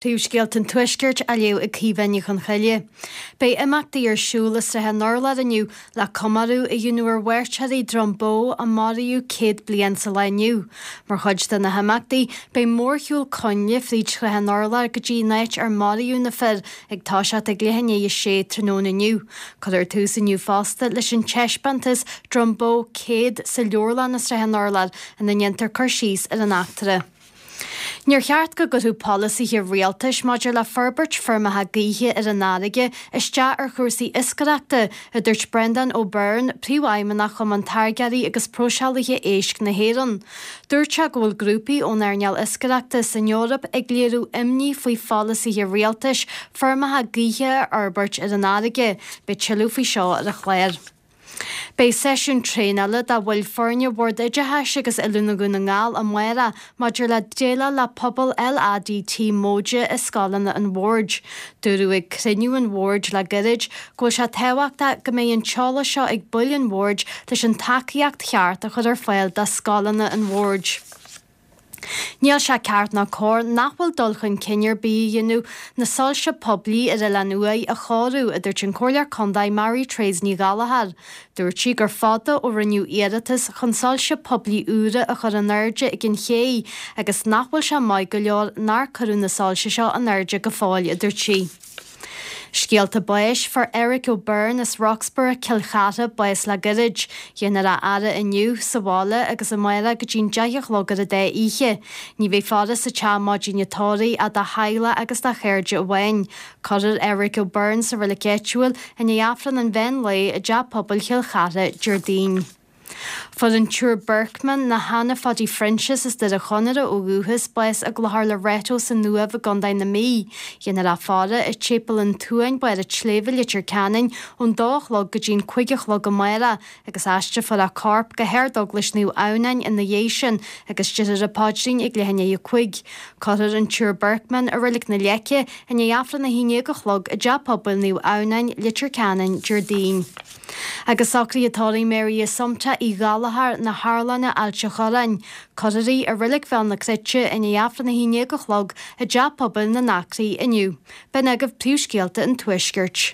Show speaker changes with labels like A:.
A: Príomhscéalta an Tuaiscirt á léamh ag Caoimhe Ní Chonchoille. Beidh imeachtaí ar siúl i Srath an Urláir inniu le comóradh a dhéanamh ar mhairtéirí Dhroim Bó a maraíodh 100 bliain sa lá inniu. Mar chuid de na himeachtaí, beidh mórshiúl coinnle fríd Shrath an Urláir go dtí an áit ar maraíodh na fir ag toiseacht ag leath i ndiaidh a sé tráthnóna inniu. Cuirfear tús inniu fosta leis an taispeántas Droim Bó 100 sa leabharlann i Srath an Urláir ina ndéantar cur síos ar an eachtra. Níor cheart go gcuirfeadh polasaithe rialtais maidir le forbairt feirmeacha gaoithe ar an fharraige isteach ar chúrsaí iascaireachta, a dúirt Breandán O'Beirne, Príomhfheidhmeannach Chumann Táirgeoirí agus Próiseálaithe Éisc na hÉireann. Dúirt sé go bhfuil grúpaí ón earnáil iascaireachta san Eoraip ag léiriú imní faoi pholasaithe rialtais feirmeacha gaoithe a fhorbairt ar an fharraige. Beidh tuilleadh faoi seo ar an chlár. Beidh seisiún traenála do bhaill foirne Bhord Oideachais agus Oiliúna Dhún na nGall amárach maidir le déileáil le pobal LADT móide i scoileanna an Bhoird. Dúradh ag cruinniú an Bhoird le gairid go bhfuil sé tábhachtach go mbeidh an t-eolas seo ag baill an Bhoird leis an tacaíocht cheart a chur ar fáil do scoileanna an Bhoird. Níl sé ceart ná cóir nach bhfuil dul chun cinn ar bith á dhéanamh na soilse poiblí ar Oileán Uaighe a chóiriú, a dúirt an Comhairleoir Contae Mary Therese Ní Ghallchóir. Dúirt sí gur fada ó rinneadh iarratas chun soilse poiblí úra a chur in airde ag an ché agus nach bhfuil sé maith go leor nár cuireadh na soilse seo in airde go fóill, a dúirt sí. Scéalta báis, Fuair Eric O'Byrne as Roxburgh, Cill Chartha, bás le gairid. Déanfar a fhaire inniu sa bhaile agus amárach go dtí'n 10 a chlog ar an dá oíche. Ní bheidh faire sa teach maidin an tórraimh ach dá theaghlach agus dá chairde amháin. Cuirfear Eric O'Byrne sa reilig áitiúil i ndiaidh Aifreann an mheán lae i dTeach Pobail Chill Chartha Déardaoin. Fuair an tSiúr Birkman, nó Hannah Phaidí Phroinsias as Doire Chonaire ó dhúchas, bás i gClochar Loreto san Uaimh i gContae na Mí. Déanfar a faire i Séipéal an tSuain, Barr an tSléibhe, Leitir Ceanainn, ón dó a chlog go dtí'n 5 a chlog amárach agus aistrefar a corp go hArd-Eaglais Naomh Adhamhnáin ina dhiaidh sin agus déarfar an paidrín ag leath i ndiaidh a 5. Cuirfear an tSiúr Birkman i Reilig na Leice i ndiaidh Aifreann a haon déag a chlog i dTeach Pobail Naomh Adhamhnáin, Leitir Ceanainn, Déardaoin. Agus socruithe tórraimh Mary Assumpta Uí Ghallchóir na hArlainne, Ailt a' Chorráin. Cuirfear í i Reilig Bhéal na Cruite i ndiaidh Aifreann 11 a chlog i dTeach Pobail na nAcraí inniu. B'in agaibh príomhscéalta an Tuaiscirt.